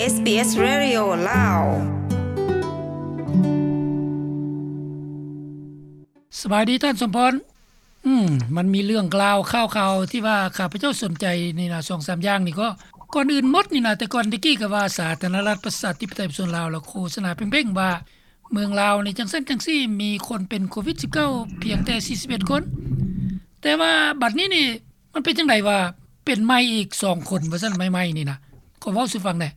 ເອສບີເອສ Radio ລາວ. ສະບາຍດີທ່ານສົມພອນ. ອືມ ມັນມີເລື່ອງລາວຂ່າວໆ ທີ່ວ່າຂ້າພະເຈົ້າສົນໃຈນີ້ນະ ສອງສາມຢ່າງນີ້ກໍ ກ່ອນອື່ນໝົດນີ້ນະ ແຕ່ກ່ອນແຕ່ກີ້ກໍວ່າສາທາລະນະລັດປະຊາທິປະໄຕປະຊາຊົນລາວ ລາວໂຄສະນາເປັງໆວ່າເມືອງລາວນີ້ຈັ່ງຊັ້ນຈັ່ງຊີ້ ມີຄົນເປັນໂຄວິດສິບເກົ້າພຽງແຕ່ສີ່ສິບເອັດຄົນ. ແຕ່ວ່າບັດນີ້ນີ້ ມັນເປັນຈັ່ງໃດວ່າເປັນໃໝ່ອີກສອງຄົນວ່າຊັ້ນ ໃໝ່ໆນີ້ນະ ຂໍເວົ້າສູ່ຟັງແໜ່.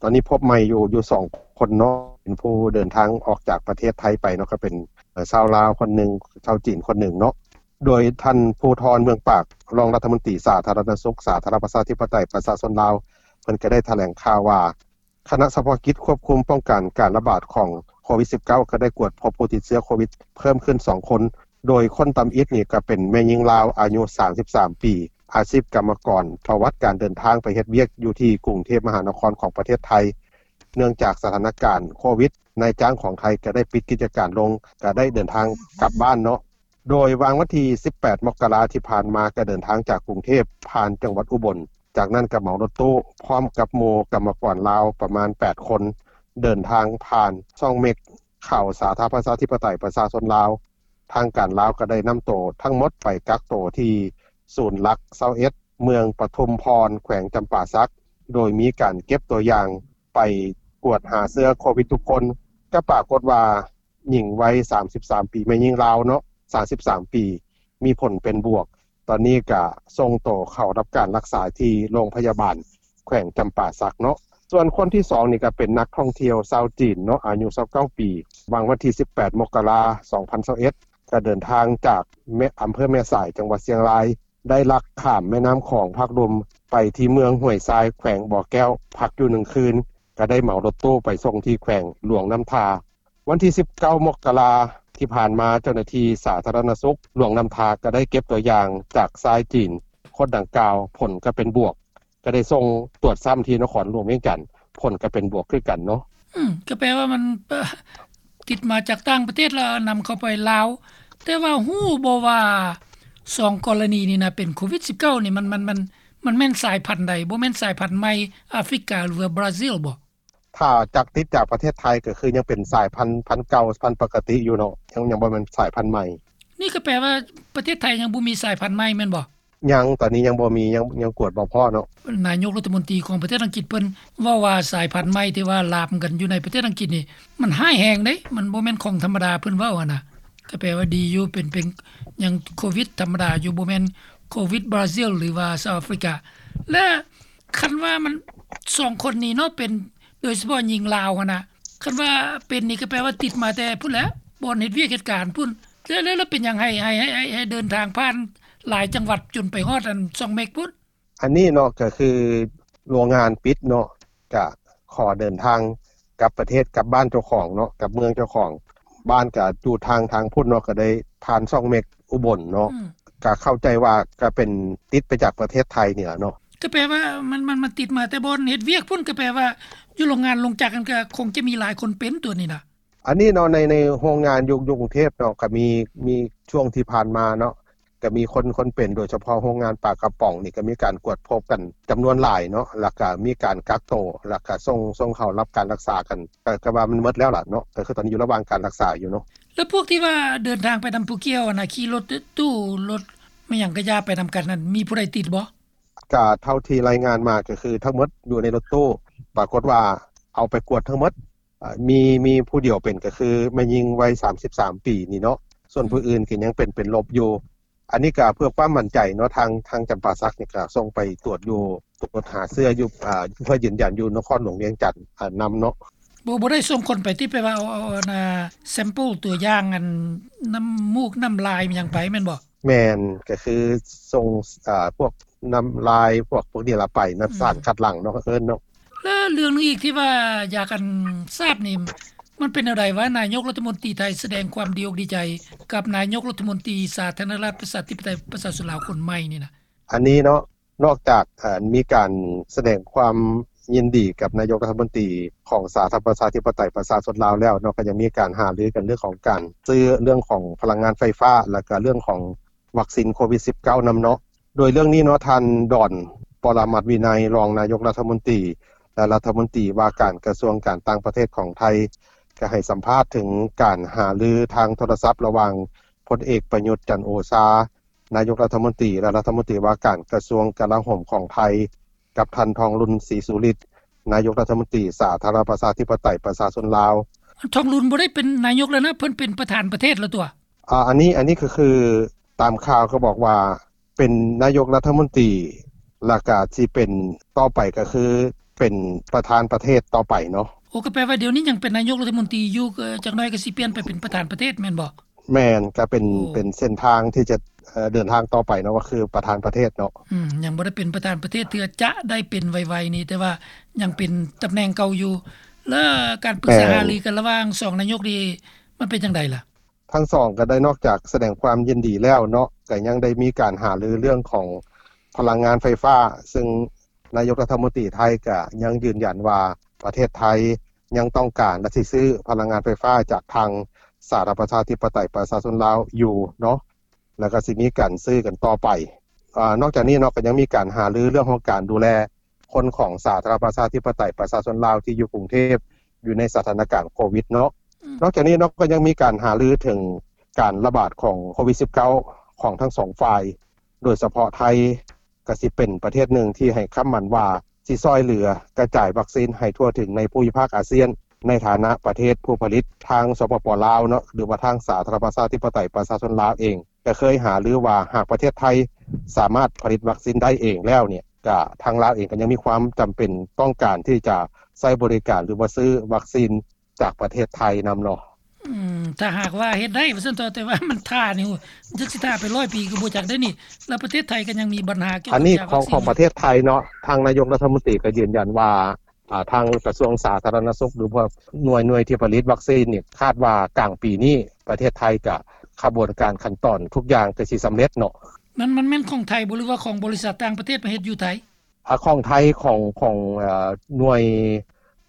ຕອນນີ້ພົບໃໝ່ຢູ່ ຢູ່ສອງຄົນເນາະ ເປັນຜູ້ເດີນທາງອອກຈາກປະເທດໄທໄປເນາະ ກໍເປັນ ເອີ ຊາວລາວຄົນໜຶ່ງ ຊາວຈີນຄົນໜຶ່ງເນາະ. ໂດຍທ່ານ ພູທອນ ເມືອງປາກ ຮອງລັດຖະມົນຕີສາທາລະນະສຸກ ສາທາລະນະລັດປະຊາທິປະໄຕປະຊາຊົນລາວ ເພິ່ນກໍໄດ້ຖະແຫຼງຂ່າວວ່າ ຄະນະສະເພາະກິດຄວບຄຸມປ້ອງກັນການລະບາດຂອງໂຄວິດສິບເກົ້າ ກໍໄດ້ກວດພົບຜູ້ຕິດເຊື້ອໂຄວິດເພີ່ມຂຶ້ນສອງຄົນ ໂດຍຄົນທຳອິດນີ້ກໍເປັນແມ່ຍິງລາວອາຍຸສາມສິບສາມປີ ອາຊີບກຳມະກອນ ປະຫວັດການເດີນທາງໄປເຮັດວຽກຢູ່ທີ່ກຸງເທບມະຫານະຄອນຂອງປະເທດໄທ. ເນື່ອງຈາກສະຖານະການໂຄວິດ ນາຍຈ້າງຂອງໄທກໍໄດ້ປິດກິດຈະການລົງ ກໍໄດ້ເດີນທາງກັບບ້ານເນາະ. ໂດຍຫວ່າງວັນທີສິບແປດ ມົກກະລາທີ່ຜ່ານມາ ກໍເດີນທາງຈາກກຸງເທບຜ່ານຈັງຫວັດອຸບົນ, ຈາກນັ້ນກໍເໝົາລົດຕູ້ພ້ອມກັບໝູ່ກຳມະກອນລາວປະມານແປດຄົນ ເດີນທາງຜ່ານຊ່ອງເມັກ ເຂົ້າສາທາລະນະລັດປະຊາທິປະໄຕປະຊາຊົນລາວ. ທາງການລາວກໍໄດ້ນຳໂຕທັງໝົດໄປກັກໂຕທີ່ສູນຫຼັກຊາວເອັດ ເມືອງປະທຸມພອນ ແຂວງຈຳປາສັກ ໂດຍມີການເກັບຕົວຢ່າງໄປກວດຫາເຊື້ອໂຄວິດທຸກຄົນ. ກໍປາກົດວ່າ ຍິງໄວສາມສິບສາມປີ ແມ່ຍິງລາວເນາະ ສາມສິບສາມປີ ມີຜົນເປັນບວກ. ຕອນນີ້ກະສົ່ງໂຕເຂົ້າຮັບການລັກສາທີ່ໂຮງພະຍາບານແຂວງຈຳປາສັກເນາະ. ສ່ວນຄົນທີສອງນີ້ກະເປັນນັກທ່ອງທ່ຽວຊາວຈີນເນາະ ອາຍຸຊາວເກົ້າປີ ຫວ່າງວັນທີສິບແປດ ມົກກະລາ ສອງພັນຊາວເອັດ ກະເດີນທາງຈາກແມ່ ອຳເພີແມ່ສາຍ ຈັງຫວັດຊຽງລາຍ ໄດ້ລັກຂ້າມແມ່ນ້ຳຂອງພາກລຸ່ມໄປທີ່ເມືອງຫ້ວຍຊາຍ ແຂວງບໍ່ແກ້ວ ພັກຢູ່ໜຶ່ງຄືນ ກະໄດ້ເໝົາລົດຕູ້ໄປສົ່ງທີ່ແຂວງຫຼວງນ້ຳທາ. ວັນທີສິບເກົ້າ ມົກກະລາທີ່ຜ່ານມາ ເຈົ້າໜ້າທີ່ສາທາລະນະສຸກຫຼວງນ້ຳທາກໍໄດ້ເກັບຕົວຢ່າງຈາກຊາຍຈີນຄົນດັ່ງກ່າວ ຜົນກໍເປັນບວກ, ກໍໄດ້ສົ່ງຕວດຊ້ຳທີ່ນະຄອນຫຼວງວຽງຈັນ ຜົນກໍເປັນບວກຄືກັນເນາະ. ອືມ ກໍແປວ່າມັນ ເອີ ຕິດມາຈາກຕ່າງປະເທດ ແລ້ວນຳເຂົ້າໄປລາວ. ແຕ່ວ່າຮູ້ບໍ່ວ່າສອງກໍລະນີນີ້ນະ ເປັນໂຄວິດສິບເກົ້ານີ້ ມັນ ມັນ ມັນ ມັນແມ່ນສາຍພັນໃດ? ບໍ່ແມ່ນສາຍພັນໃໝ່ອາຟຣິກາ ຫຼືວ່າບຣາຊິລບໍ່? ຖ້າຈາກ ຕິດຈາກປະເທດໄທກໍຄືຍັງເປັນສາຍພັນ ພັນເກົ່າ ພັນປົກກະຕິຢູ່ເນາະ, ຍັງ ຍັງບໍ່ແມ່ນສາຍພັນໃໝ່. ນີ້ກໍແປວ່າປະເທດໄທຍັງບໍ່ມີສາຍພັນໃໝ່ແມ່ນບໍ່? ຍັງ, ຕອນນີ້ຍັງບໍ່ມີ, ຍັງ, ຍັງກວດບໍ່ພໍ້ເນາະ. ນາຍົກລັດຖະມົນຕີຂອງປະເທດອັງກິດເພິ່ນເວົ້າວ່າສາຍພັນໃໝ່ທີ່ວ່າລາມກັນຢູ່ໃນປະເທດອັງກິດນີ້ ມັນຮ້າຍແຮງເດ້, ມັນບໍ່ແມ່ນຂອງທຳມະດາ, ເພິ່ນເວົ້າຫັ້ນນະ. ກໍແປວ່າດີຢູ່, ເປັນ, ເປັນຫຍັງໂຄວິດທຳມະດາຢູ່, ບໍ່ແມ່ນໂຄວິດບຣາຊິລ ຫຼືວ່າເຊົາອາຟຣິກາ. ແລະ ຄັນວ່າມັນສອງຄົນນີ້ເນາະ ເປັນ ໂດຍສະເພາະຍິງລາວຫັ້ນນະ, ຄັນວ່າເປັນນີ້ກໍແປວ່າຕິດມາແຕ່ພຸ້ນແຫຼະ, ບ່ອນເຮັດວຽກເຮັດການພຸ້ນ. ແລ້ວ ແລ້ວ ແລ້ວເປັນຫຍັງໃຫ້ ໃຫ້ ໃຫ້ ໃຫ້ ໃຫ້ເດີນທາງຜ່ານຫຼາຍຈັງຫວັດຈົນໄປຮອດອັນຊ່ອງເມັກພຸ້ນ? ອັນນີ້ເນາະ ກໍຄືໂຮງງານປິດເນາະ, ກະຂໍເດີນທາງກັບປະເທດ, ກັບບ້ານເຈົ້າຂອງເນາະ, ກັບເມືອງເຈົ້າຂອງ. ບ້ານກະຢູ່ທາງ, ທາງພຸ້ນເນາະ, ກໍໄດ້ຜ່ານຊ່ອງເມັກອຸບົນເນາະ. ອືມ. ກະເຂົ້າໃຈວ່າກະເປັນຕິດໄປຈາກປະເທດໄທນີ້ລະເນາະ. ກໍແປວ່າມັນ, ມັນ, ມັນຕິດມາແຕ່ບ່ອນເຮັດວຽກພຸ້ນ, ກໍແປວ່າຢູ່ໂຮງງານໂຮງຈັກຫັ້ນກໍຄົງຈະມີຫຼາຍຄົນເປັນຕົວນີ້ນະ. ອັນນີ້ເນາະ ໃນ, ໃນໂຮງງານຢູ່, ຢູ່ກຸງເທບເນາະ ກໍມີ, ມີຊ່ວງທີ່ຜ່ານມາເນາະ ກໍມີຄົນ, ຄົນເປັນ ໂດຍສະເພາະໂຮງງານປາກະປ໋ອງນີ້ ກໍມີການກວດພົບກັນຈຳນວນຫຼາຍເນາະ ແລ້ວກໍມີການກັກໂຕ ແລ້ວກໍສົ່ງ, ສົ່ງເຂົ້າຮັບການລັກສາກັນ ກໍ, ກໍວ່າມັນໝົດແລ້ວລະເນາະ, ກໍຄືຕອນນີ້ຢູ່ລະຫວ່າງການລັກສາຢູ່ເນາະ. ແລ້ວພວກທີ່ວ່າເດີນທາງໄປນຳຜູ້ກ່ຽວຫັ້ນນະ ຂີ່ລົດຕູ້ ລົດແມ່ນຫຍັງກະຢ່າໄປນຳກັນນັ້ນ ມີຜູ້ໃດຕິດບໍ່? ກະເທົ່າທີ່ລາຍງານມາ ກໍຄືທັງໝົດຢູ່ໃນລົດຕູ້ ປາກົດວ່າເອົາໄປກວດທັງໝົດ ເອີ ມີ, ມີຜູ້ດຽວເປັນ ກໍຄືແມ່ຍິງໄວສາມສິບສາມປີນີ້ເນາະ, ສ່ວນຜູ້ອື່ນກໍຍັງເປັນ, ເປັນລົບຢູ່. ອັນນີ້ກໍເພື່ອຄວາມໝັ້ນໃຈເນາະ ທາງ, ທາງຈຳປາສັກນີ້ກໍສົ່ງໄປຕວດຢູ່, ຕວດຫາເຊື້ອຢູ່, ເພື່ອຢືນຢັນຢູ່ນະຄອນຫຼວງວຽງຈັນນຳເນາະ. ບໍ່, ບໍ່ໄດ້ສົ່ງຄົນໄປຕິ ແປວ່າເອົາ, ເອົາ, ເອົາ sample ຕົວຢ່າງອັນນ້ຳມູກນ້ຳລາຍຫຍັງໄປແມ່ນບໍ່? ແມ່ນ, ກໍຄືສົ່ງ, ເອີ ພວກນ້ຳລາຍ ພວກ, ພວກນີ້ລະໄປນະ, ອືມ ສານຄັດຫຼັງເນາະ ເອີ້ນເນາະ. ແລະເລື່ອງໜຶ່ງອີກທີ່ວ່າຢາກອັນຊາບນີ້ ມັນເປັນແນວໃດວ່າ ນາຍົກລັດຖະມົນຕີໄທສະແດງຄວາມດີອົກດີໃຈກັບນາຍົກລັດຖະມົນຕີສາທາລະນະລັດປະຊາທິປະໄຕປະຊາຊົນລາວຄົນໃໝ່ນີ້ນະ? ອັນນີ້ເນາະ ນອກຈາກ ເອີ ມີການສະແດງຄວາມຍິນດີກັບນາຍົກລັດຖະມົນຕີຂອງສາທາລະນະລັດປະຊາທິປະໄຕປະຊາຊົນລາວແລ້ວເນາະ, ກໍຍັງມີການຫາລືກັນເລື່ອງຂອງການຊື້ເລື່ອງຂອງພະລັງງານໄຟຟ້າ ແລ້ວກໍເລື່ອງຂອງວັກຊີນໂຄວິດສິບເກົ້ານຳເນາະ. ໂດຍເລື່ອງນີ້ເນາະ ທ່ານ ດອນ ປະລະມັດວິໄນ ຮອງນາຍົກລັດຖະມົນຕີ ແລະລັດຖະມົນຕີວ່າການກະຊວງການຕ່າງປະເທດຂອງໄທ ກໍໃຫ້ສຳພາດເຖິງການຫາລືທາງໂທລະສັບລະຫວ່າງພົນເອກ ປະຍຸດ ຈັນໂອຊາ ນາຍົກລັດຖະມົນຕີ ແລະລັດຖະມົນຕີວ່າການກະຊວງກະລາໂຫມຂອງໄທ ກັບທ່ານ ທອງລຸນ ສີສຸລິດ ນາຍົກລັດຖະມົນຕີສາທາລະນະລັດປະຊາທິປະໄຕປະຊາຊົນລາວ. ທ່ານ ທອງລຸນບໍ່ໄດ້ເປັນນາຍົກແລ້ວນະ ເພິ່ນເປັນປະທານປະເທດແລ້ວຕົວະ. ອາ ອັນນີ້ ອັນນີ້ກໍຄືຕາມຂ່າວກໍບອກວ່າເປັນນາຍົກລັດຖະມົນຕີ ແລ້ວກໍຊິເປັນຕໍ່ໄປກໍຄືເປັນປະທານປະເທດຕໍ່ໄປເນາະ. ໂອ້ ກໍແປວ່າດຽວນີ້ຍັງເປັນນາຍົກລັດຖະມົນຕີຢູ່ ຈັກໜ້ອຍກໍຊິປ່ຽນໄປເປັນປະທານປະເທດແມ່ນບໍ່? ແມ່ນ ກໍເປັນ ເປັນເສັ້ນທາງທີ່ຈະເດີນທາງຕໍ່ໄປເນາະ ກໍຄືປະທານປະເທດເນາະ. ອືມ ຍັງບໍ່ໄດ້ເປັນປະທານປະເທດເທື່ອ ຈະໄດ້ເປັນໄວໆນີ້ ແຕ່ວ່າຍັງເປັນຕຳແໜ່ງເກົ່າຢູ່. ແລ້ວການປຶກສາຫາລືກັນລະຫວ່າງສອງນາຍົກນີ້ ມັນເປັນຈັ່ງໃດລະ? ທັງສອງກໍໄດ້ນອກຈາກສະແດງຄວາມຍິນດີແລ້ວເນາະ ກໍຍັງໄດ້ມີການຫາລືເລື່ອງຂອງພະລັງງານໄຟຟ້າ ຊຶ່ງນາຍົກລັດຖະມົນຕີໄທກໍຍັງຢືນຢັນວ່າປະເທດໄທຍັງຕ້ອງການ ແລະ ຊິຊື້ພະລັງງານໄຟຟ້າຈາກທາງສາທາລະນະລັດປະຊາທິປະໄຕປະຊາຊົນລາວຢູ່ເນາະ ແລ້ວກໍຊິມີການຊື້ກັນຕໍ່ໄປ. ອາ ນອກຈາກນີ້ເນາະ ກໍຍັງມີການຫາລືເລື່ອງຂອງການດູແລ ຄົນຂອງສາທາລະນະລັດປະຊາທິປະໄຕປະຊາຊົນລາວທີ່ຢູ່ກຸງເທບ ຢູ່ໃນສະຖານະການໂຄວິດເນາະ. ອືມ ນອກຈາກນີ້ເນາະ ກໍຍັງມີການຫາລືເຖິງການລະບາດຂອງໂຄວິດສິບເກົ້າ ຂອງທັງສອງຝ່າຍ ໂດຍສະເພາະໄທກໍຊິເປັນປະເທດໜຶ່ງທີ່ໃຫ້ຄຳໝັ້ນວ່າຊິຊ່ອຍເຫຼືອກະຈາຍວັກຊີນໃຫ້ທົ່ວເຖິງໃນພູມິພາກອາຊຽນ ໃນຖານະປະເທດຜູ້ຜະລິດ. ທາງ ສປປ ລາວເນາະ ຫຼືວ່າທາງສາທາລະນະລັດປະຊາທິປະໄຕປະຊາຊົນລາວເອງ ກໍເຄີຍຫາລືວ່າຫາກປະເທດໄທສາມາດຜະລິດວັກຊີນໄດ້ເອງແລ້ວນີ້ ກະທາງລາວເອງກໍຍັງມີຄວາມຈຳເປັນຕ້ອງການທີ່ຈະໃຊ້ບໍລິການ ຫຼືວ່າຊື້ວັກຊີນຈາກປະເທດໄທນຳເນາະ. ອືມ ຖ້າຫາກວ່າເຮັດໄດ້ວ່າຊັ້ນເຖາະ ແຕ່ວ່າມັນຖ້ານີ້ ຈັກຊິຖ້າໄປຮ້ອຍປີກໍບໍ່ຈັກໄດ້ນີ້ ແລ້ວປະເທດໄທກໍຍັງມີບັນຫາກ່ຽວກັບ ອັນນີ້ຂອງ ຂອງປະເທດໄທເນາະ ທາງນາຍົກລັດຖະມົນຕີກໍຢືນຢັນວ່າ ອາ ທາງກະຊວງສາທາລະນະສຸກ ຫຼືວ່າໜ່ວຍ ໜ່ວຍທີ່ຜະລິດວັກຊີນນີ້ ຄາດວ່າກາງປີນີ້ປະເທດໄທກະຂະບວນການຂັ້ນຕອນທຸກຢ່າງກໍຊິສຳເລັດເນາະ. ມັນ ມັນແມ່ນຂອງໄທບໍ່ ຫຼືວ່າຂອງບໍລິສັດຕ່າງປະເທດມາເຮັດຢູ່ໄທ? ອາ ຂອງໄທ ຂອງ ຂອງ ເອີ ໜ່ວຍ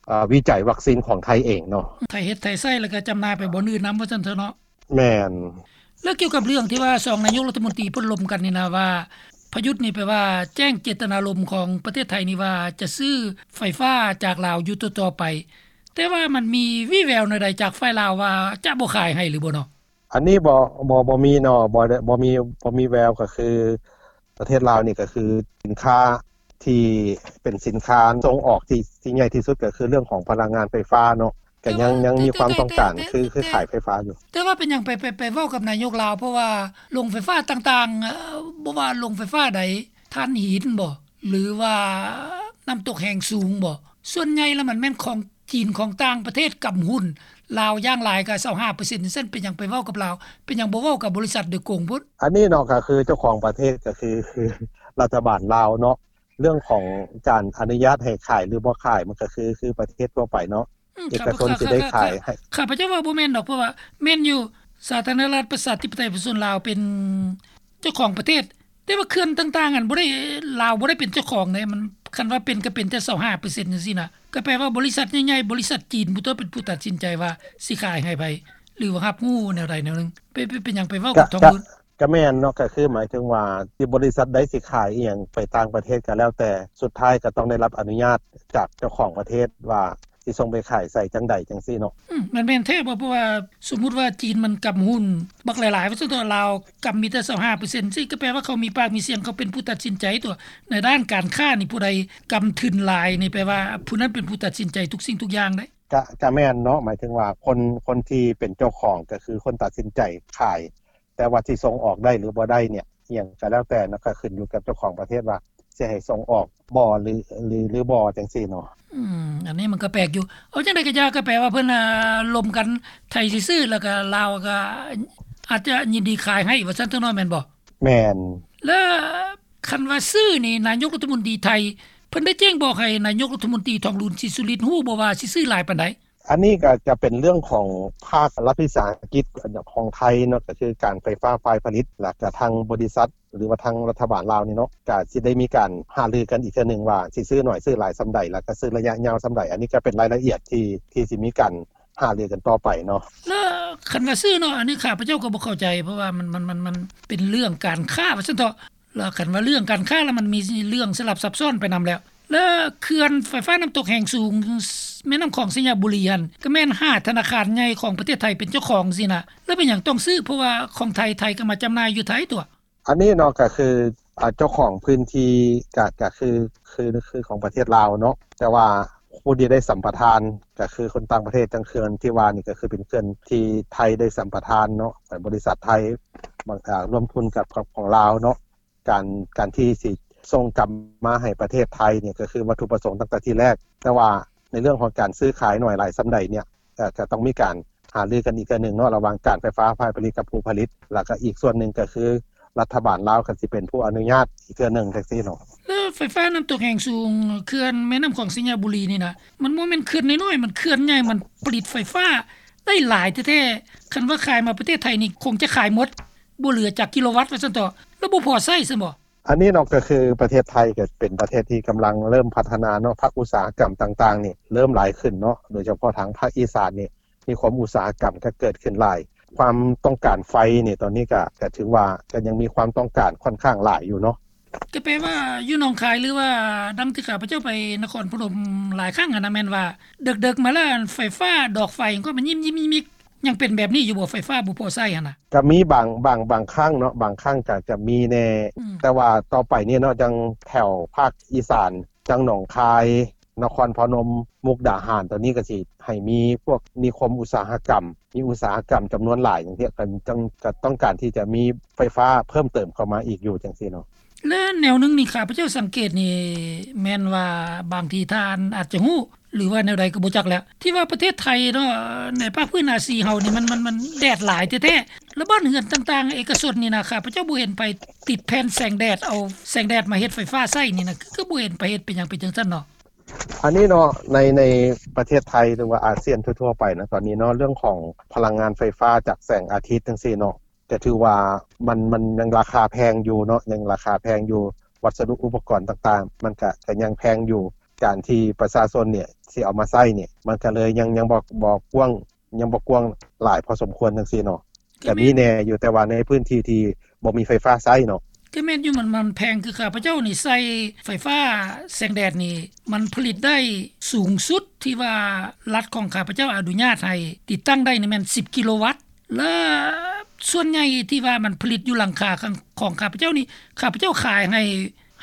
ເອີ ວິໄຈວັກຊີນຂອງໄທເອງເນາະ. ໄທເຮັດໄທໃຊ້ ແລ້ວກໍຈຳໜ່າຍໄປບ່ອນອື່ນນຳວ່າຊັ້ນເຖາະເນາະ. ແມ່ນ. ແລ້ວກ່ຽວກັບເລື່ອງທີ່ວ່າສອງນາຍົກລັດຖະມົນຕີເພິ່ນລົມກັນນີ້ນະ ວ່າ ປະຍຸດນີ້ແປວ່າແຈ້ງເຈດຕະນາລົມຂອງປະເທດໄທນີ້ວ່າຈະຊື້ໄຟຟ້າຈາກລາວຢູ່ຕໍ່ໆໄປ ແຕ່ວ່າມັນມີວີ່ແວວແນວໃດຈາກຝ່າຍລາວວ່າຈະບໍ່ຂາຍໃຫ້ຫຼືບໍ່ເນາະ? ອັນນີ້ບໍ່ ບໍ່ ບໍ່ມີເນາະ ບໍ່ໄດ້ ບໍ່ມີ ບໍ່ມີແວວ ກໍຄືປະເທດລາວນີ້ກໍຄືສິນຄ້າທີ່ເປັນສິນຄ້າສົ່ງອອກທີ່ ທີ່ໃຫຍ່ທີ່ສຸດກໍຄືເລື່ອງຂອງພະລັງງານໄຟຟ້າເນາະ ກໍຍັງ ຍັງມີຄວາມຕ້ອງການ ແຕ່ ຄື ຄືຂາຍໄຟຟ້າຢູ່. ແຕ່ວ່າເປັນຫຍັງໄປ ໄປ ໄປເວົ້າກັບນາຍົກລາວ ເພາະວ່າໂຮງໄຟຟ້າຕ່າງໆ ເອີ ບໍ່ວ່າໂຮງໄຟຟ້າໃດ ຖ່ານຫີນບໍ ຫຼືວ່ານ້ຳຕົກແຮງສູງບໍ ສ່ວນໃຫຍ່ແລ້ວມັນແມ່ນຂອງຈີນ ຂອງຕ່າງປະເທດກຳຫຸ້ນ ລາວຢ່າງຫຼາຍກໍຊາວຫ້າເປີເຊັນ ຈັ່ງຊັ້ນ ເປັນຫຍັງໄປເວົ້າກັບລາວ ເປັນຫຍັງບໍ່ເວົ້າກັບບໍລິສັດໂດຍກົງພຸ້ນ? ອັນນີ້ເນາະ ກໍຄືເຈົ້າຂອງປະເທດ ກໍຄື ຄືລັດຖະບານລາວເນາະ ເລື່ອງຂອງການອະນຸຍາດໃຫ້ຂາຍ ຫຼື ບໍ່ຂາຍ ມັນກໍຄື ຄືປະເທດທົ່ວໄປເນາະ ອືມ ເອກະຊົນຊິໄດ້ຂາຍໃຫ້. ຂ້າພະເຈົ້າວ່າບໍ່ແມ່ນດອກ ເພາະວ່າແມ່ນຢູ່ ສາທາລະນະລັດປະຊາທິປະໄຕປະຊາຊົນລາວເປັນເຈົ້າຂອງປະເທດ ແຕ່ວ່າເຂື່ອນຕ່າງໆ ອັນບໍ່ໄດ້ ລາວບໍ່ໄດ້ເປັນເຈົ້າຂອງເດ້ ມັນ ຄັນວ່າເປັນກໍເປັນແຕ່ຊາວຫ້າເປີເຊັນຈັ່ງຊີ້ນະ ກໍແປວ່າບໍລິສັດໃຫຍ່ໆ ບໍລິສັດຈີນຜູ້ຕົວເປັນຜູ້ຕັດສິນໃຈວ່າຊິຂາຍໃຫ້ໃຜ ຫຼືວ່າຮັບຮູ້ແນວໃດແນວໜຶ່ງ. ເປັນ ເປັນ ເປັນຫຍັງໄປເວົ້າກັບທອງລຸນ? ກະແມ່ນເນາະ ກະຄືໝາຍເຖິງວ່າທີ່ບໍລິສັດໃດຊິຂາຍອີ່ຫຍັງໄປຕ່າງປະເທດກໍແລ້ວແຕ່ ສຸດທ້າຍກໍຕ້ອງໄດ້ຮັບອະນຸຍາດຈາກເຈົ້າຂອງປະເທດວ່າຊິສົ່ງໄປຂາຍໃສຈັ່ງໃດຈັ່ງຊີ້ເນາະ. ອືມ ມັນແມ່ນແທ້ບໍ່? ເພາະວ່າສົມມຸດວ່າຈີນມັນກຳຫຸ້ນບັກຫຼາຍໆ ວ່າຊັ້ນເຖາະ ລາວກຳມີແຕ່ຊາວຫ້າເປີເຊັນ ຊີ້ ກໍແປວ່າເຂົາມີປາກມີສຽງ ເຂົາເປັນຜູ້ຕັດສິນໃຈຕົວະ ໃນດ້ານການຄ້ານີ້ ຜູ້ໃດກຳທຶນຫຼາຍນີ້ ແປວ່າຜູ້ນັ້ນເປັນຜູ້ຕັດສິນໃຈທຸກສິ່ງທຸກຢ່າງເດ້. ກະ ກະແມ່ນເນາະ ໝາຍເຖິງວ່າຄົນ ຄົນທີ່ເປັນເຈົ້າຂອງກໍຄືຄົນຕັດສິນໃຈຂາຍ ແຕ່ວ່າຊິສົ່ງອອກໄດ້ ຫຼື ບໍ່ໄດ້ເນຍ ອີ່ຫຍັງກໍແລ້ວແຕ່ເນາະ ກໍຂຶ້ນຢູ່ກັບເຈົ້າຂອງປະເທດວ່າຊິໃຫ້ສົ່ງອອກບໍ່ ຫຼື ຫຼື ຫຼືບໍ່ ຈັ່ງຊີ້ເນາະ. ອືມ ອັນນີ້ມັນກໍແປກຢູ່. ເອົາຈັ່ງໃດກໍຢ່າ ກໍແປວ່າເພິ່ນ ອາ ລົມກັນ ໄທຊິຊື້ ແລ້ວກໍລາວກໍອາດຈະຍິນດີຂາຍໃຫ້ ວ່າຊັ້ນເຖາະເນາະ ແມ່ນບໍ່? ແມ່ນ. ແລ້ວຄັນວ່າຊື້ນີ້ ນາຍົກລັດຖະມົນຕີໄທ ເພິ່ນໄດ້ແຈ້ງບອກໃຫ້ນາຍົກລັດຖະມົນຕີ ທອງລຸນ ສີສຸລິດ ຮູ້ບໍ່ວ່າຊິຊື້ຫຼາຍປານໃດ? ອັນນີ້ກໍຈະເປັນເລື່ອງຂອງພາກລັດວິສາຫະກິດຂອງໄທເນາະ ກໍຄືການໄຟຟ້າຝ່າຍຜະລິດ ແລ້ວກໍທາງບໍລິສັດ ຫຼືວ່າທາງລັດຖະບານລາວນີ້ເນາະ ກໍຊິໄດ້ມີການຫາລືກັນອີກເທື່ອໜຶ່ງວ່າຊິຊື້ໜ້ອຍຊື້ຫຼາຍສ່ຳໃດ ແລ້ວກໍຊື້ໄລຍະຍາວສ່ຳໃດ. ອັນນີ້ກໍເປັນລາຍລະອຽດທີ່ ທີ່ຊິມີການຫາລືກັນຕໍ່ໄປເນາະ. ແລ້ວຄັນວ່າຊື້ເນາະ ອັນນີ້ຂ້າພະເຈົ້າກໍບໍ່ເຂົ້າໃຈ ເພາະວ່າມັນ ມັນ ມັນ ມັນເປັນເລື່ອງການຄ້າວ່າຊັ້ນເຖາະ. ແລ້ວຄັນວ່າເລື່ອງການຄ້າແລ້ວ ມັນມີເລື່ອງສະຫຼັບຊັບຊ້ອນໄປນຳແລ້ວ. ແລະເຂື່ອນໄຟຟ້ານ້ຳຕົກແຮງສູງ ແມ່ນ້ຳຂອງໄຊຍະບູລີຫັ້ນ ກໍແມ່ນຫ້າທະນາຄານໃຫຍ່ຂອງປະເທດໄທເປັນເຈົ້າຂອງຊີ້ນະ ແລ້ວເປັນຫຍັງຕ້ອງຊື້? ເພາະວ່າຂອງໄທ ໄທກໍມາຈຳໜ່າຍຢູ່ໄທຕົວະ. ອັນນີ້ເນາະ ກໍຄື ອາ ເຈົ້າຂອງພື້ນທີ່ ກະ ກະຄື ຄື ຄືຂອງປະເທດລາວເນາະ ແຕ່ວ່າຜູ້ທີ່ໄດ້ສຳປະທານ ກໍຄືຄົນຕ່າງປະເທດ. ຈັ່ງເຂື່ອນທີ່ວ່ານີ້ ກໍຄືເປັນເຂື່ອນທີ່ໄທໄດ້ສຳປະທານເນາະ ໃຫ້ບໍລິສັດໄທ ບາງ ອາ ຮ່ວມທຶນກັບ ກັບຂອງລາວເນາະ. ການ ການທີ່ຊິສົ່ງກັບມາໃຫ້ປະເທດໄທນີ້ ກໍຄືວັດຖຸປະສົງຕັ້ງແຕ່ທີແລກ, ແຕ່ວ່າໃນເລື່ອງຂອງການຊື້ຂາຍໜ້ອຍຫຼາຍສ່ຳໃດນີ້ ກໍ ກໍຕ້ອງມີການຫາລືກັນອີກເທື່ອໜຶ່ງເນາະ ລະຫວ່າງການໄຟຟ້າຝ່າຍຜະລິດກັບຜູ້ຜະລິດ, ແລ້ວກໍອີກສ່ວນໜຶ່ງກໍຄືລັດຖະບານລາວກໍຊິເປັນຜູ້ອະນຸຍາດອີກເທື່ອໜຶ່ງ ຈັ່ງຊີ້ເນາະ. ແລ້ວໄຟຟ້ານ້ຳຕົກແຮງສູງ ເຂື່ອນແມ່ນ້ຳຂອງໄຊຍະບູລີນີ້ນະ ມັນບໍ່ແມ່ນເຂື່ອນນ້ອຍໆ ມັນເຂື່ອນໃຫຍ່ ມັນຜະລິດໄຟຟ້າໄດ້ຫຼາຍແທ້ໆ. ຄັນວ່າຂາຍມາປະເທດໄທນີ້ ຄົງຈະຂາຍໝົດ ບໍ່ເຫຼືອຈັກກິໂລວັດວ່າຊັ້ນເຖາະ ແລ້ວບໍ່ພໍໃຊ້ຊັ້ນບໍ? ອັນນີ້ເນາະ ກໍຄືປະເທດໄທກໍເປັນປະເທດທີ່ກຳລັງເລີ່ມພັດທະນາເນາະ, ພາກອຸດສາຫະກຳຕ່າງໆນີ້ເລີ່ມຫຼາຍຂຶ້ນເນາະ, ໂດຍສະເພາະທາງພາກອີສານນີ້ມີຄວາມອຸດສາຫະກຳກໍເກີດຂຶ້ນຫຼາຍ. ຄວາມຕ້ອງການໄຟນີ້ຕອນນີ້ກໍ ກໍຖືວ່າກໍຍັງມີຄວາມຕ້ອງການຂ້ອນຂ້າງຫຼາຍຢູ່ເນາະ. ກໍແປວ່າຢູ່ໜອງຄາຍ ຫຼືວ່າດັ່ງທີ່ຂ້າພະເຈົ້າໄປນະຄອນພະນົມຫຼາຍຄັ້ງຫັ້ນນະ ແມ່ນວ່າເດິກໆມາແລ້ວ ໄຟຟ້າດອກໄຟກໍມາຍິ້ມໆ ຍັງເປັນແບບນີ້ຢູ່ບໍ່? ໄຟຟ້າບໍ່ພໍໃຊ້ຫັ້ນນະ. ກໍມີບາງ ບາງ ບາງຄັ້ງເນາະ, ບາງຄັ້ງກໍຈະມີແດ່ ອືມ ແຕ່ວ່າຕໍ່ໄປນີ້ເນາະ ຈັ່ງແຖວພາກອີສານ ຈັ່ງໜອງຄາຍ, ນະຄອນພະນົມ, ມຸກດາຫານ ຕອນນີ້ກໍຊິໃຫ້ມີພວກນິຄົມອຸດສາຫະກຳ ມີອຸດສາຫະກຳຈຳນວນຫຼາຍ ຈັ່ງຊີ້ ກໍຈັ່ງ ກໍຕ້ອງການທີ່ຈະມີໄຟຟ້າເພີ່ມເຕີມເຂົ້າມາອີກຢູ່ ຈັ່ງຊີ້ເນາະ. ແລະແນວໜຶ່ງນີ້ ຂ້າພະເຈົ້າສັງເກດນີ້ ແມ່ນວ່າບາງທີທ່ານອາດຈະຮູ້ ຫຼືວ່າແນວໃດກໍບໍ່ຈັກແຫຼະ ທີ່ວ່າປະເທດໄທເນາະ ໃນພາກພື້ນອາຊີເຮົານີ້ ມັນ ມັນ ມັນແດດຫຼາຍແທ້ໆ ແລ້ວບ້ານເຮືອນຕ່າງໆເອກະຊົນນີ້ນະ ຂ້າພະເຈົ້າບໍ່ເຫັນໃຜຕິດແຜ່ນແສງແດດ ເອົາແສງແດດມາເຮັດໄຟຟ້າໃຊ້ນີ້ນະ ຄື ຄືບໍ່ເຫັນໃຜເຮັດ. ເປັນຫຍັງເປັນຈັ່ງຊັ້ນເນາະ? ອັນນີ້ເນາະ ໃນ ໃນປະເທດໄທ ຫຼືວ່າອາຊຽນທົ່ວໆໄປນະ ຕອນນີ້ເນາະ ເລື່ອງຂອງພະລັງງານໄຟຟ້າຈາກແສງອາທິດ ຈັ່ງຊີ້ເນາະ ກໍຖືວ່າມັນ ມັນຍັງລາຄາແພງຢູ່ເນາະ ຍັງລາຄາແພງຢູ່, ວັດສະດຸອຸປະກອນຕ່າງໆ ມັນກະ ກະຍັງແພງຢູ່. ການທີ່ປະຊາຊົນນີ້ຊິເອົາມາໃຊ້ນີ້ ມັນກະເລີຍຍັງ ຍັງບໍ່ ບໍ່ກວ້າງ ຍັງບໍ່ກວ້າງຫຼາຍພໍສົມຄວນ ຈັ່ງຊີ້ເນາະ. ກະມີແດ່ຢູ່ ແຕ່ວ່າໃນພື້ນທີ່ທີ່ບໍ່ມີໄຟຟ້າໃຊ້ເນາະ. ກໍແມ່ນຢູ່ ມັນ ມັນແພງ. ຄືຂ້າພະເຈົ້ານີ້ໃຊ້ໄຟຟ້າແສງແດດນີ້ ມັນຜະລິດໄດ້ສູງສຸດທີ່ວ່າລັດຂອງຂ້າພະເຈົ້າອະນຸຍາດໃຫ້ຕິດຕັ້ງໄດ້ນີ້ແມ່ນສິບກິໂລວັດ ແລະສ່ວນໃຫຍ່ທີ່ວ່າມັນຜະລິດຢູ່ຫຼັງຄາຂອງ ຂອງຂ້າພະເຈົ້ານີ້ ຂ້າພະເຈົ້າຂາຍໃຫ້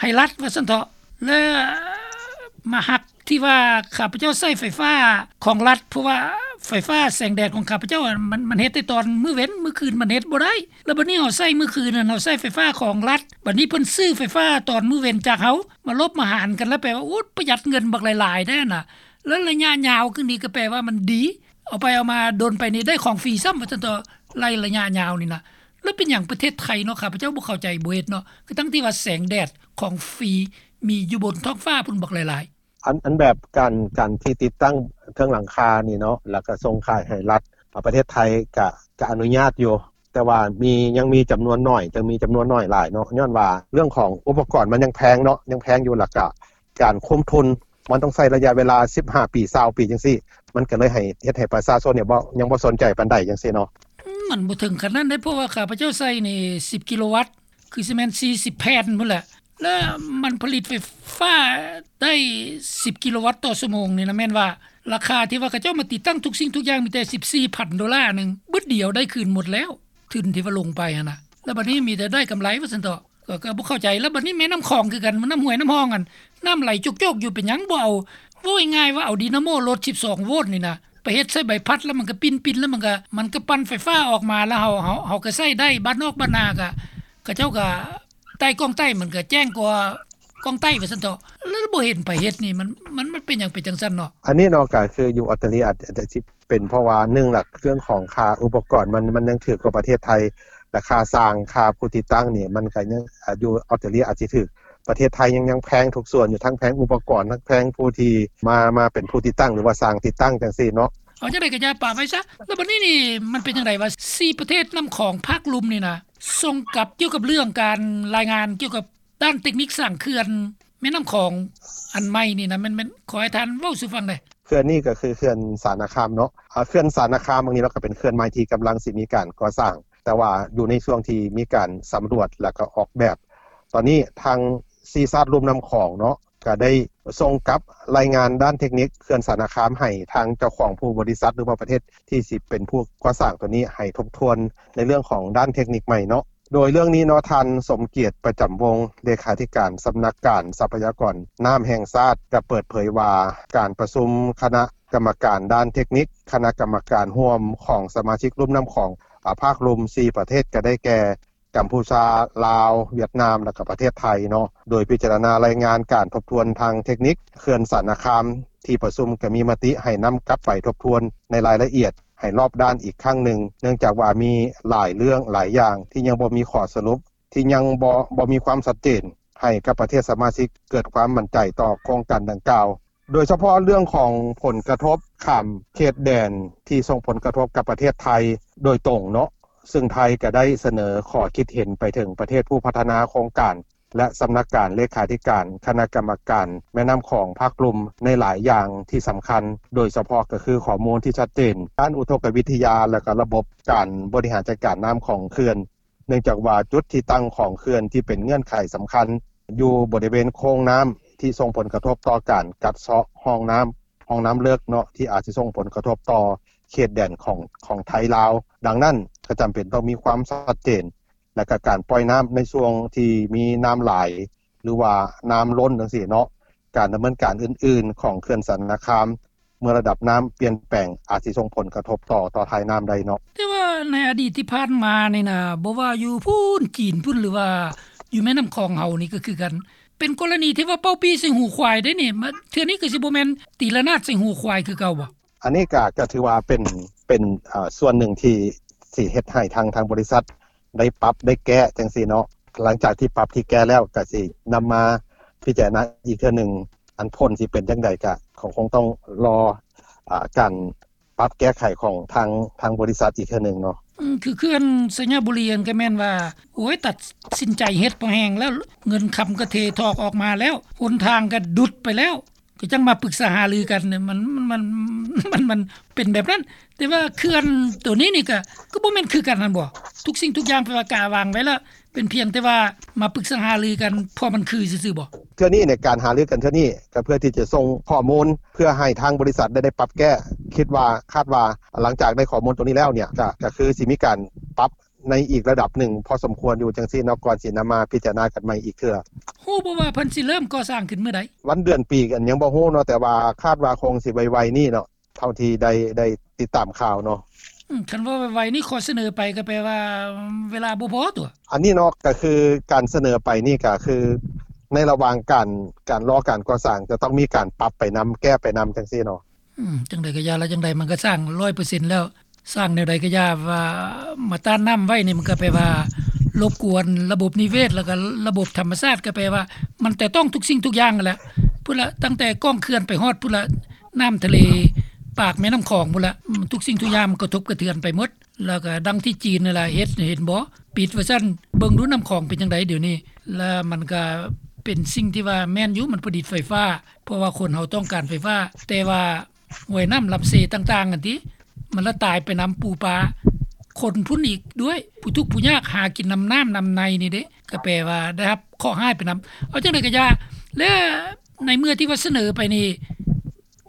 ໃຫ້ລັດວ່າຊັ້ນເຖາະ ແລະມາຫັກທີ່ວ່າຂ້າພະເຈົ້າໃຊ້ໄຟຟ້າຂອງລັດ ເພາະວ່າໄຟຟ້າແສງແດດຂອງຂ້າພະເຈົ້າ ມັນ ມັນເຮັດແຕ່ຕອນມື້ເວັນ ມື້ຄືນມັນເຮັດບໍ່ໄດ້. ແລ້ວບັດນີ້ເຮົາໃຊ້ມື້ຄືນນັ້ນ ເຮົາໃຊ້ໄຟຟ້າຂອງລັດ ບັດນີ້ເພິ່ນຊື້ໄຟຟ້າຕອນມື້ເວັນຈາກເຮົາ ມາລົບມາຫານກັນ ແລ້ວແປວ່າ ໂອ້ ປະຢັດເງິນບັກຫຼາຍໆແທ້ນະ. ແລ້ວໄລຍະຍາວຄືນີ້ກໍແປວ່າມັນດີ ເອົາໄປເອົາມາດົນໄປນີ້ໄດ້ຂອງຟຣີຊ້ຳວ່າຊັ້ນເຖາະ ໄລ ໄລຍະຍາວນີ້ນະ. ແລ້ວເປັນຫຍັງປະເທດໄທເນາະ ຂ້າພະເຈົ້າບໍ່ເຂົ້າໃຈ ບໍ່ເຮັດເນາະ ຄືທັງທີ່ວ່າແສງແດດຂອງຟຣີມີຢູ່ບົນທ້ອງຟ້າພຸ້ນບັກຫຼາຍໆ. ອັນ ອັນແບບການ ການທີ່ຕິດຕັ້ງເທິງຫຼັງຄານີ້ເນາະ ແລ້ວກໍສົ່ງຂາຍໃຫ້ລັດ ປະເທດໄທກະ ກະອະນຸຍາດຢູ່ ແຕ່ວ່າມີ ຍັງມີຈຳນວນໜ້ອຍ ຍັງມີຈຳນວນໜ້ອຍຫຼາຍເນາະ ຍ້ອນວ່າເລື່ອງຂອງອຸປະກອນມັນຍັງແພງເນາະ ຍັງແພງຢູ່ ແລ້ວກະການຄຸມທຶນ ມັນຕ້ອງໃຊ້ໄລຍະເວລາສິບຫ້າປີ ຊາວປີຈັ່ງຊີ້ ມັນກໍເລີຍໃຫ້ ເຮັດໃຫ້ປະຊາຊົນນີ້ບໍ່ ຍັງບໍ່ສົນໃຈປານໃດຈັ່ງຊີ້ເນາະ. ອືມ ມັນບໍ່ເຖິງຂະໜາດນັ້ນເດ້ ເພາະວ່າຂ້າພະເຈົ້າໃຊ້ນີ້ສິບກິໂລວັດ ຄືຊິແມ່ນສີ່ສິບແຜ່ນພຸ້ນແຫຼະ ແລ້ວມັນຜະລິດໄຟຟ້າໄດ້ສິບກິໂລວັດຕໍ່ຊົ່ວໂມງນີ້ນະ ແມ່ນວ່າລາຄາທີ່ວ່າເຂົາເຈົ້າມາຕິດຕັ້ງທຸກສິ່ງທຸກຢ່າງມີແຕ່ສິບສີ່ພັນໂດລາໜຶ່ງ ບຶດດຽວໄດ້ຄືນໝົດແລ້ວ ທຶນທີ່ວ່າລົງໄປຫັ້ນນະ ແລ້ວບັດນີ້ມີແຕ່ໄດ້ກຳໄລວ່າຊັ້ນເຖາະ. ກໍ ກໍບໍ່ເຂົ້າໃຈ. ແລ້ວບັດນີ້ແມ່ນ້ຳຂອງຄືກັນ ນ້ຳຫ້ວຍນ້ຳຮ່ອງຫັ້ນ ນ້ຳໄຫຼໂຈກໆຢູ່ ເປັນຫຍັງບໍ່ເອົາ ເວົ້າງ່າຍໆວ່າເອົາດີນາໂມລົດສິບສອງໂວນນີ້ນະ ໄປເຮັດໃສ່ໃບພັດ ແລ້ວມັນກໍປິ່ນໆ ແລ້ວມັນກໍ ມັນກໍປັ່ນໄຟຟ້າອອກມາ ແລ້ວເຮົາ ເຮົາ ເຮົາກໍໃຊ້ໄດ້ ບ້ານນອກບ້ານນາກໍ ເຂົາເຈົ້າກໍໃຕ້ກ້ອງໃຕ້ ມັນກໍແຈ້ງກວ່າກ້ອງໃຕ້ວ່າຊັ້ນເຖາະ ແລ້ວບໍ່ເຫັນໃຜເຮັດນີ້ ມັນ ມັນ ມັນເປັນຫຍັງເປັນຈັ່ງຊັ້ນເນາະ? ອັນນີ້ເນາະ ກໍຄືຢູ່ອົດຕະລີອາດ ອາດຈະຊິ ເປັນເພາະວ່າໜຶ່ງລະ ເລື່ອງຂອງຄ່າອຸປະກອນມັນ ມັນຍັງຖືກກວ່າປະເທດໄທ ແລະ ຄ່າຊ່າງ ຄ່າຜູ້ຕິດຕັ້ງນີ້ ມັນກໍຍັງ ອາ ຢູ່ອອສເຕຣເລຍອາດຊິຖືກ ປະເທດໄທຍັງ ຍັງແພງທຸກສ່ວນຢູ່ ທັງແພງອຸປະກອນ ທັງແພງຜູ້ທີ່ມາ ມາເປັນຜູ້ຕິດຕັ້ງ ຫຼືວ່າຊ່າງຕິດຕັ້ງຈັ່ງຊີ້ເນາະ. ເອົາຈັ່ງໃດກໍຢ່າປະໄວ້ຊະ. ແລ້ວບັດນີ້ນີ້ມັນເປັນຈັ່ງໃດວ່າ ສີ່ປະເທດນ້ຳຂອງພາກລຸ່ມນີ້ນະ ສົ່ງກັບ ກ່ຽວກັບເລື່ອງການລາຍງານກ່ຽວກັບ ດ້ານເຕັກນິກສ້າງເຂື່ອນແມ່ນ້ຳຂອງອັນໃໝ່ນີ້ນະ ແມ່ນ ແມ່ນ ຂໍໃຫ້ທ່ານເວົ້າສູ່ຟັງແດ່. ເຂື່ອນນີ້ກໍຄືເຂື່ອນສານາຄາມເນາະ ອາ ເຂື່ອນສານາຄາມບາງນີ້ເນາະ ກໍເປັນເຂື່ອນໃໝ່ທີ່ກຳລັງຊິມີການກໍ່ສ້າງ ແຕ່ວ່າຢູ່ໃນຊ່ວງທີ່ມີການສຳຫຼວດ ແລ້ວກໍອອກແບບ. ຕອນນີ້ທາງສີ່ຊາດລຸ່ມນ້ຳຂອງເນາະ ກໍໄດ້ສົ່ງກັບລາຍງານດ້ານເທັກນິກເຂື່ອນສານະຄາມໃຫ້ທາງເຈົ້າຂອງຜູ້ບໍລິສັດ ຫຼືວ່າປະເທດທີ່ຊິເປັນຜູ້ກໍ່ສ້າງໂຕນີ້ໃຫ້ທົບທວນໃນເລື່ອງຂອງດ້ານເທັກນິກໃໝ່ເນາະ. ໂດຍເລື່ອງນີ້ເນາະ ທ່ານ ສົມກຽດ ປະຈຳວົງ ເລຂາທິການສຳນັກງານຊັບພະຍາກອນນ້ຳແຫ່ງຊາດ ກໍເປີດເຜີຍວ່າ ການປະຊຸມຄະນະກຳມະການດ້ານເທັກນິກ ຄະນະກຳມະການຮ່ວມຂອງສະມາຊິກລຸ່ມນ້ຳຂອງ ອາ ພາກລຸ່ມສີ່ປະເທດ ກໍໄດ້ແກ່ ກຳພູຊາ, ລາວ, ຫວຽດນາມ ແລະ ກໍປະເທດໄທເນາະ ໂດຍພິຈາລະນາລາຍງານການທົບທວນທາງເທັກນິກເຂື່ອນສານະຄາມ. ທີ່ປະຊຸມກໍມີມະຕິໃຫ້ນຳກັບໄປທົບທວນໃນລາຍລະອຽດໃຫ້ລອບດ້ານອີກຄັ້ງໜຶ່ງ ເນື່ອງຈາກວ່າມີຫຼາຍເລື່ອງຫຼາຍຢ່າງທີ່ຍັງບໍ່ມີຂໍ້ສະຫຼຸບ ທີ່ຍັງບໍ່ ບໍ່ມີຄວາມຊັດເຈນ ໃຫ້ກັບປະເທດສະມາຊິກເກີດຄວາມໝັ້ນໃຈຕໍ່ໂຄງການດັ່ງກ່າວ. ໂດຍສະເພາະເລື່ອງຂອງຜົນກະທົບຂ້າມເຂດແດນທີ່ສົ່ງຜົນກະທົບກັບປະເທດໄທໂດຍຕົງເນາະ, ຊຶ່ງໄທກໍໄດ້ສະເໜີຂໍ້ຄິດເຫັນໄປເຖິງປະເທດຜູ້ພັດທະນາໂຄງການ ແລະ ສຳນັກງານເລຂາທິການຄະນະກຳມະການແມ່ນ້ຳຂອງພາກລຸ່ມໃນຫຼາຍຢ່າງທີ່ສຳຄັນ, ໂດຍສະເພາະກໍຄືຂໍ້ມູນທີ່ຊັດເຈນດ້ານອຸທົກກະວິທະຍາ ແລະ ກໍລະບົບການບໍລິຫານຈັດການນ້ຳຂອງເຂື່ອນ. ເນື່ອງຈາກວ່າຈຸດທີ່ຕັ້ງຂອງເຂື່ອນທີ່ເປັນເງື່ອນໄຂສຳຄັນຢູ່ບໍລິເວນໂຄງນ້ຳ ທີ່ສົ່ງຜົນກະທົບຕໍ່ການກັດເຊາະຮ່ອງນ້ຳ, ຮ່ອງນ້ຳເລິກເນາະ ທີ່ອາດຊິສົ່ງຜົນກະທົບຕໍ່ເຂດແດນຂອງ ຂອງໄທລາວ. ດັ່ງນັ້ນກໍຈຳເປັນຕ້ອງມີຄວາມຊັດເຈນ ແລະ ກະການປ່ອຍນ້ຳໃນຊ່ວງທີ່ມີນ້ຳຫຼາຍ ຫຼືວ່ານ້ຳລົ້ນຈັ່ງຊີ້ເນາະ, ການດຳເນີນການອື່ນໆຂອງເຂື່ອນສານະຄາມ ເມື່ອລະດັບນ້ຳປ່ຽນແປງ ອາດຊິສົ່ງຜົນກະທົບຕໍ່ ຕໍ່ທ້າຍນ້ຳໄດ້ເນາະ. ແຕ່ວ່າໃນອະດີດທີ່ຜ່ານມານີ້ນະ ບໍ່ວ່າຢູ່ພຸ້ນຈີນພຸ້ນ ຫຼືວ່າຢູ່ແມ່ນ້ຳຂອງເຮົານີ້ກໍຄືກັນ ເປັນກໍລະນີທີ່ວ່າເປົ່າປີ້ໃສ່ຫູຄວາຍເດ້ນີ້. ມາເທື່ອນີ້ກໍຊິບໍ່ແມ່ນຕີລະນາດໃສ່ຫູຄວາຍຄືເກົ່າບໍ່? ອັນນີ້ກໍ ກໍຖືວ່າເປັນ ເປັນ ເອີ ສ່ວນໜຶ່ງທີ່ ທີ່ເຮັດໃຫ້ທາງ ທາງບໍລິສັດໄດ້ປັບໄດ້ແກ້ຈັ່ງຊີ້ເນາະ. ຫຼັງຈາກທີ່ປັບທີ່ແກ້ແລ້ວ ກໍຊິນຳມາພິຈາລະນາອີກເທື່ອໜຶ່ງ. ອັນຜົນຊິເປັນຈັ່ງໃດ ກໍ ກໍຄົງຕ້ອງລໍ ອາ ການປັບແກ້ໄຂຂອງທາງ ທາງບໍລິສັດອີກເທື່ອໜຶ່ງເນາະ. ອືມ ຄືເຂື່ອນໄຊຍະບູລີຫັ້ນກໍແມ່ນວ່າ ໂອ້ຍ ຕັດສິນໃຈເຮັດພໍແຮງແລ້ວ, ເງິນຄຳກໍເທຖອກອອກມາແລ້ວ, ຫົນທາງກໍດຸດໄປແລ້ວ. ກໍຈັ່ງມາປຶກສາຫາລືກັນ ມັນ ມັນ ມັນ ມັນ ມັນເປັນແບບນັ້ນ. ແຕ່ວ່າເຂື່ອນໂຕນີ້ນີ້ກໍ ກໍບໍ່ແມ່ນຄືກັນຫັ້ນບໍ່? ທຸກສິ່ງທຸກຢ່າງແປວ່າກະວາງໄວ້ແລ້ວ ເປັນພຽງແຕ່ວ່າມາປຶກສາຫາລືກັນ ພໍມັນຄືຊື່ໆບໍ່? ເທື່ອນີ້ໃນການຫາລືກັນເທື່ອນີ້ ກໍເພື່ອທີ່ຈະສົ່ງຂໍ້ມູນ ເພື່ອໃຫ້ທາງບໍລິສັດໄດ້ ໄດ້ປັບແກ້. ຄິດວ່າ ຄາດວ່າຫຼັງຈາກໄດ້ຂໍ້ມູນໂຕນີ້ແລ້ວເນ່ຍ ກໍ ກໍຄືຊິມີການປັບ ໃນອີກລະດັບໜຶ່ງພໍສົມຄວນຢູ່ຈັ່ງຊີ້ເນາະ ກ່ອນຊິນຳມາພິຈາລະນາກັນໃໝ່ອີກເທື່ອ. ຮູ້ບໍ່ວ່າເພິ່ນຊິເລີ່ມກໍ່ສ້າງຂຶ້ນມື້ໃດ? ວັນເດືອນປີກໍຍັງບໍ່ຮູ້ເນາະ, ແຕ່ວ່າຄາດວ່າຄົງຊິໄວໆນີ້ເນາະ ເທົ່າທີ່ໄດ້ ໄດ້ຕິດຕາມຂ່າວເນາະ. ອືມ ຄັນວ່າໄວໆນີ້ ຂໍສະເໜີໄປກໍແປວ່າເວລາບໍ່ພໍຕົວະ? ອັນນີ້ເນາະ ກໍຄືການສະເໜີໄປນີ້ ກໍຄືໃນລະຫວ່າງການ ການລໍການກໍ່ສ້າງ ຈະຕ້ອງມີການປັບໄປນຳ ແກ້ໄປນຳຈັ່ງຊີ້ເນາະ. ອືມ ຈັ່ງໃດກໍຢ່າລະ ຈັ່ງໃດມັນກໍສ້າງຮ້ອຍເປີເຊັນແລ້ວ, ສ້າງແນວໃດກໍຢ່າ ວ່າມາຕ້ານນ້ຳໄວ້ນີ້ ມັນກໍແປວ່າລົບກວນລະບົບນິເວດ ແລ້ວກໍລະບົບທຳມະຊາດ, ກໍແປວ່າມັນແຕະຕ້ອງທຸກສິ່ງທຸກຢ່າງຫັ້ນແຫຼະ. ພຸ້ນລະ ຕັ້ງແຕ່ກ້ອງເຂື່ອນໄປຮອດພຸ້ນລະ ນ້ຳທະເລ ປາກແມ່ນ້ຳຂອງພຸ້ນລະ, ອືມ ທຸກສິ່ງທຸກຢ່າງມັນກະທົບກະເທືອນໄປໝົດ. ແລ້ວກໍດັ່ງທີ່ຈີນນັ້ນລະເຮັດ ເຫັນບໍ່ ປິດວ່າຊັ້ນ, ເບິ່ງດູນ້ຳຂອງເປັນຈັ່ງໃດດຽວນີ້. ແລ້ວມັນກໍເປັນສິ່ງທີ່ວ່າແມ່ນຢູ່ ມັນຜະລິດໄຟຟ້າ ເພາະວ່າຄົນເຮົາຕ້ອງການໄຟຟ້າ, ແຕ່ວ່າຫ້ວຍນ້ຳລຳເຊຕ່າງໆຫັ້ນຕິ ມັນລະຕາຍໄປນຳປູປາ, ຄົນພຸ້ນອີກດ້ວຍ, ຜູ້ທຸກຜູ້ຍາກຫາກິນນຳນ້ຳນຳໃນນີ້ເດ້, ກໍແປວ່າໄດ້ຮັບເຄາະຮ້າຍໄປນຳ. ເອົາຈັ່ງໃດກໍຢ່າ, ແລະ ໃນເມື່ອທີ່ວ່າສະເໜີໄປນີ້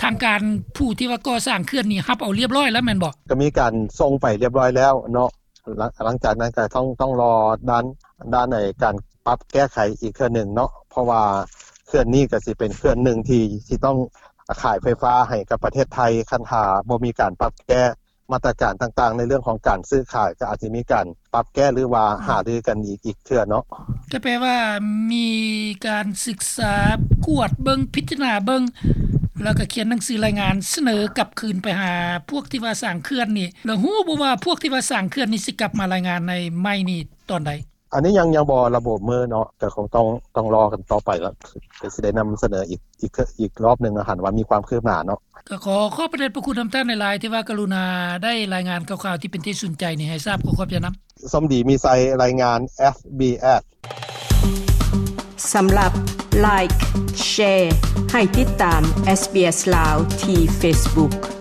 ທາງການຜູ້ທີ່ວ່າກໍ່ສ້າງເຂື່ອນນີ້ຮັບເອົາລຽບຮ້ອຍແລ້ວແມ່ນບໍ່? ກໍມີການສົ່ງໄປລຽບຮ້ອຍແລ້ວເນາະ. ຫຼັງ ຫຼັງຈາກນັ້ນກໍຕ້ອງ ຕ້ອງລໍດ້ານ ດ້ານໃນການປັບແກ້ໄຂອີກເທື່ອໜຶ່ງເນາະ, ເພາະວ່າເຂື່ອນນີ້ກໍຊິເປັນເຂື່ອນໜຶ່ງທີ່ຊິຕ້ອງຂາຍໄຟຟ້າໃຫ້ກັບປະເທດໄທ. ຄັນຖ້າບໍ່ມີການປັບແກ້ມາດຕະການຕ່າງໆ ໃນເລື່ອງຂອງການຊື້ຂາຍ ກໍອາດຈະມີການປັບແກ້ ຫຼືວ່າຫາລືກັນອີກ ອີກເທື່ອເນາະ. ກໍແປວ່າມີການສຶກສາ ກວດເບິ່ງ ພິຈາລະນາເບິ່ງ ແລ້ວກໍຂຽນໜັງສືລາຍງານສະເໜີກັບຄືນໄປຫາພວກທີ່ວ່າສ້າງເຂື່ອນນີ້, ແລ້ວຮູ້ບໍ່ວ່າພວກທີ່ວ່າສ້າງເຂື່ອນນີ້ຊິກັບມາລາຍງານໃນໃໝ່ນີ້ຕອນໃດ? ອັນນີ້ຍັງ ຍັງບໍ່ລະບຸມື້ເນາະ, ກໍຄົງຕ້ອງ ຕ້ອງລໍກັນຕໍ່ໄປລະ, ກໍຊິໄດ້ນຳສະເໜີອີກ ອີກ ອີກລອບໜຶ່ງເນາະ, ຫັ້ນວ່າມີຄວາມຄືບໜ້າເນາະ. ກໍຂໍຂອບພະເດດພະຄຸນນຳທ່ານຫຼາຍໆ ທີ່ວ່າກະລຸນາໄດ້ລາຍງານຂ່າວໆ ທີ່ເປັນທີ່ສົນໃຈນີ້ໃຫ້ຊາບ. ຂໍຂອບໃຈນຳ. ສົມດີມີໄຊ, ລາຍງານ ເອສບີເອສ. ສຳລັບ Like, Share ໃຫ້ຕິດຕາມ SBS ລາວ ທີ່ Facebook.